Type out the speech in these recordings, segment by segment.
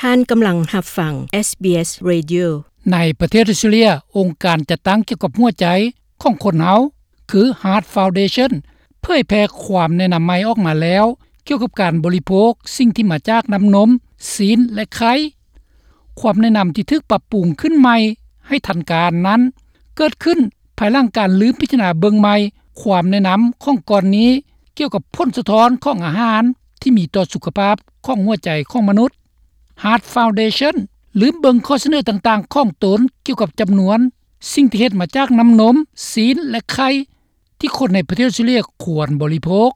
ທ່ານກຳລັງຮັບຟັງ SBS Radio. ໃນປະເທດອົດສະຕຣາເລຍ, ອົງການຈັດຕັ້ງກ່ຽວກັບຫົວໃຈຂອງຄົນເຮົາ ຄື Heart Foundation ເຜີຍແຜ່ຄວາມແນະນຳໃໝ່ອອກມາແລ້ວ ກ່ຽວກັບການບໍລິໂພກສິ່ງທີ່ມາຈາກນ້ຳນົມ, ຊີ້ນ ແລະ ໄຂ່. ຄວາມແນະນຳທີ່ຖືກປັບປຸງຂຶ້ນໃໝ່ໃຫ້ທັນການນັ້ນ ເກີດຂຶ້ນພາຍຫຼັງການລືມພິຈາລະນາເບິ່ງໃໝ່ຄວາມແນະນຳຂອງກ່ອນນີ້ ກ່ຽວກັບຜົນສະທ້ອນຂອງອາຫານທີ່ມີຕໍ່ສຸຂະພາບຂອງຫົວໃຈຂອງມະນຸດ. Heart Foundation ລືມເບິ່ງຂໍ້ສະເໜີຕ່າງໆຂອງຕົນກ່ຽວກັບຈຳນວນສິ່ງທີ່ເຮັດມາຈາກນ້ຳນົມ, ຊີ້ນ ແລະ ໄຂ່ ທີ່ຄົນໃນປະເທດອົດສະຕຣາເລຍຄວນບໍລິໂພກ.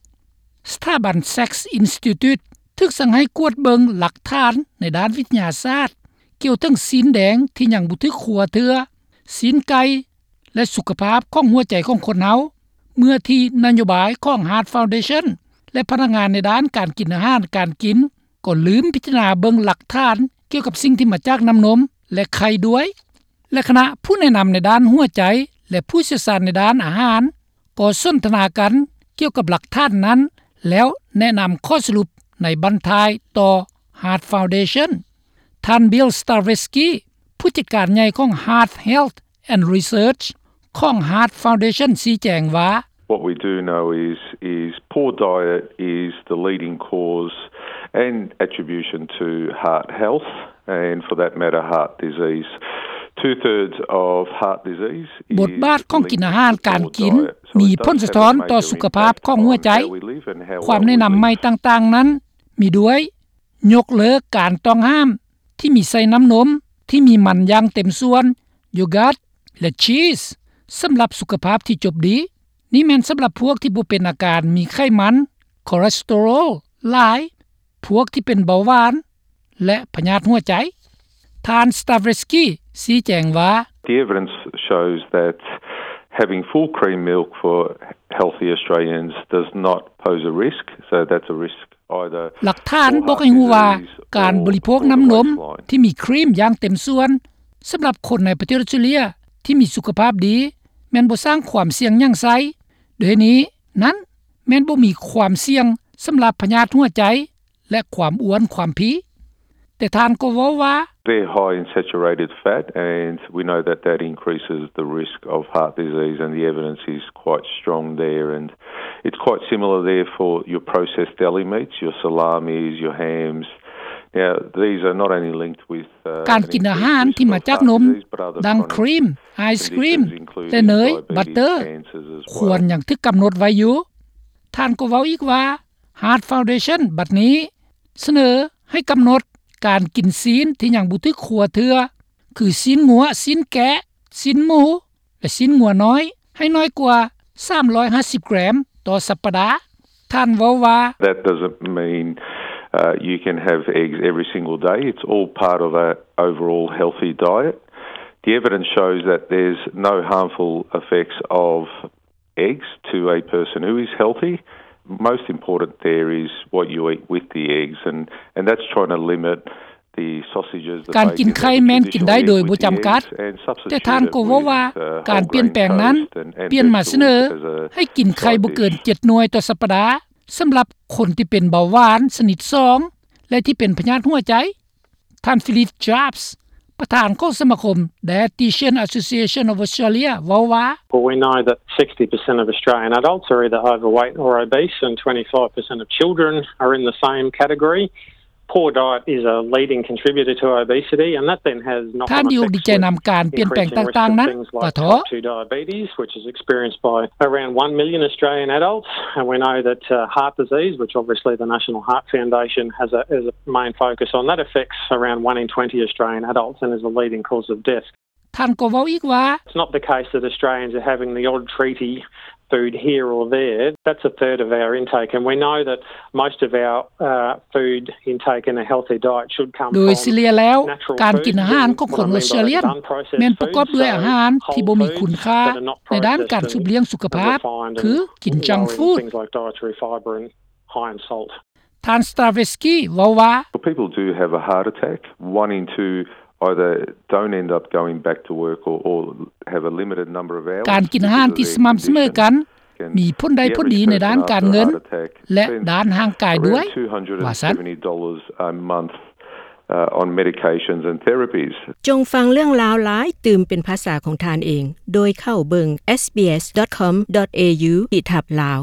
ສະຖາບັນ Sacks Institute ຖືກສັ່ງໃຫ້ກວດເບິ່ງຫຼັກຖານໃນດ້ານວິທະຍາສາດ ກ່ຽວເຖິງຊີ້ນແດງທີ່ຍັງບໍ່ຖືກຄົວເທື່ອ, ຊີ້ນໄກ່ ແລະ ສຸຂະພາບຂອງຫົວໃຈຂອງຄົນເຮົາ ເມື່ອທີ່ນະໂຍບາຍຂອງ Heart Foundation ແລະ ພະນັກງານໃນດ້ານການກິນອາຫານການກິນ ກໍລືມພິຈາລະນາເບິ່ງຫຼັກຖານກ່ຽວກັບສິ່ງທີ່ມາຈາກນ້ຳນົມ ແລະ ໄຂ່ດ້ວຍ. ແລະ ຄະນະຜູ້ແນະນຳໃນດ້ານຫົວໃຈ ແລະ ຜູ້ຊ່ຽວຊານໃນດ້ານອາຫານ ກໍສົນທະນາກັນກ່ຽວກັບຫຼັກຖານນັ້ນ ແລ້ວແນະນຳຂໍ້ສະຫຼຸບໃນບັ້ນທ້າຍຕໍ່ Heart Foundation. ທ່ານ Bill Stareski ຜູ້ຈັດການໃຫຍ່ຂອງ Heart Health and Research ຂອງ Heart Foundation ຊີ້ແຈງວ່າ, What we do know is, is poor diet is the leading cause and attribution to heart health, and for that matter, heart disease. Two thirds of heart disease is linked to poor diet. ບົດບາດຂອງກິນອາຫານການກິນມີຜົນສະທ້ອນຕໍ່ສຸຂະພາບຂອງຫົວໃຈ. ຄວາມແນະນຳໃໝ່ຕ່າງໆນັ້ນມີດ້ວຍ ຍົກເລີກການຕ້ອງຫ້າມທີ່ມີໃສ່ນ້ຳນົມທີ່ມີມັນຢ່າງເຕັມສ່ວນ, ໂຢກາດ ແລະ ຊີສ ສຳລັບສຸຂະພາບທີ່ຈົບດີ. ນີ້ແມ່ນສຳລັບພວກທີ່ບໍ່ເປັນອາການມີໄຂມັນ, ຄໍເລສເຕີຣອລຫຼາຍ, ພວກທີ່ເປັນເບົາຫວານ ແລະ ພະຍາດຫົວໃຈ. ທ່ານ Stareski ຊີ້ແຈງວ່າ, The evidence shows that having full cream milk for healthy Australians does not pose a risk, so that's a risk. ຫຼັກຖານບອກໃຫ້ຮູ້ວ່າ ການບໍລິໂພກນ້ຳນົມທີ່ມີຄຣີມຢ່າງເຕັມສ່ວນ ສຳລັບຄົນໃນປະເທດອົດສະຕຣາເລຍທີ່ມີສຸຂະພາບດີ ແມ່ນບໍ່ສ້າງຄວາມສ່ຽງຫຍັງໃສ່. ດ້ວຍເຫດນີ້ນັ້ນ ແມ່ນບໍ່ມີຄວາມສ່ຽງສຳລັບພະຍາດຫົວໃຈ ແລະ ຄວາມອ້ວນຄວາມພີ. ແຕ່ທ່ານກໍເວົ້າວ່າ, They're high in saturated fat, and we know that that increases the risk of heart disease, and the evidence is quite strong there, and it's quite similar there for your processed deli meats, your salamis, your hams. Now, these are not only linked with, uh, ການກິນອາຫານທີ່ມາຈາກນົມ, ດັ່ງຄຣີມ, ໄອສຄຣີມ ແລະ ເນີຍ, ບັດເຕີ ຄວນຍັງຖືກກຳນົດໄວ້ຢູ່. ທ່ານກໍເວົ້າອີກວ່າ, Heart Foundation ບັດນີ້ສະເໜີໃຫ້ກຳນົດການກິນຊີ້ນທີ່ຍັງບໍ່ຖືກຄົວເທື່ອ ຄືຊີ້ນງົວ, ຊີ້ນແກະ, ຊີ້ນໝູ ແລະ ຊີ້ນງົວນ້ອຍ ໃຫ້ນ້ອຍກວ່າສາມຮ້ອຍຫ້າສິບແກຣມຕໍ່ສັບປະດາ. ທ່ານເວົ້າວ່າ, That doesn't mean, uh, you can have eggs every single day. It's all part of a overall healthy diet. The evidence shows that there's no harmful effects of eggs to a person who is healthy. Most important there is what you eat with the eggs, and, and that's trying to limit the sausages, the bacon, and the traditional egg with the eggs, and substitute it with, uh, whole grain toast and, and vegetables as a side dish. ການກິນໄຂ່ແມ່ນກິນໄດ້ໂດຍບໍ່ຈຳກັດ, ແຕ່ທ່ານກໍເວົ້າວ່າ ການປ່ຽນແປງນັ້ນ ປ່ຽນມາຊະເໜີໃຫ້ກິນໄຂ່ບໍ່ເກີນເຈັດໜ່ວຍຕໍ່ສັບປະດາ ສຳລັບຄົນທີ່ເປັນເບົາຫວານຊະນິດສອງ ແລະ ທີ່ເປັນພະຍາດຫົວໃຈ. ທ່ານ Philip Jacobs ປະທານຂອງສະມາຄົມ Dietitian Association of Australia ເວົ້າວ່າ, Well, we know that sixty percent of Australian adults are either overweight or obese, and twenty-five percent of children are in the same category. Poor diet is a leading contributor to obesity, and that then has knock-on effects with increasing risk of things like type two diabetes, which is experienced by around one million Australian adults. And we know that, uh, heart disease, which obviously the National Heart Foundation has a, has a main focus on, that affects around one in twenty Australian adults and is a leading cause of death. ທ່ານກໍເວົ້າອີກວ່າ, It's not the case that Australians are having the odd treaty food here or there. That's a third of our intake, and we know that most of our, uh, food intake in a healthy diet should come from natural foods. ໂດຍສະເລ່ຍແລ້ວ, ການກິນອາຫານຂອງຄົນອົດສະຕຣາເລຍ ແມ່ນປະກອບດ້ວຍອາຫານທີ່ບໍ່ມີຄຸນຄ່າໃນດ້ານການສືບລ້ຽງສຸຂະພາບ ຄືກິນ junk food. Things like dietary fibre and high in salt. ທ່ານ Stareski ເວົ້າວ່າ, Well, people do have a heart attack. One in two either don't end up going back to work or, or have a limited number of hours. ການກິນອາຫານທີ່ສະໝ່ຳສະເໝີກັນ ມີຜົນໄດ້ຜົນດີໃນດ້ານການເງິນ ແລະ ດ້ານຮ່າງກາຍດ້ວຍ, ວ່າຊັ້ນ. Around two hundred and seventy dollars a month uh, on medications and therapies. ຈົ່ງຟັງເລື່ອງລາວຫຼາຍຕື່ມເປັນພາສາຂອງທ່ານເອງ ໂດຍເຂົ້າເບິ່ງ SBS.com.au ຂີດທັບ Lao.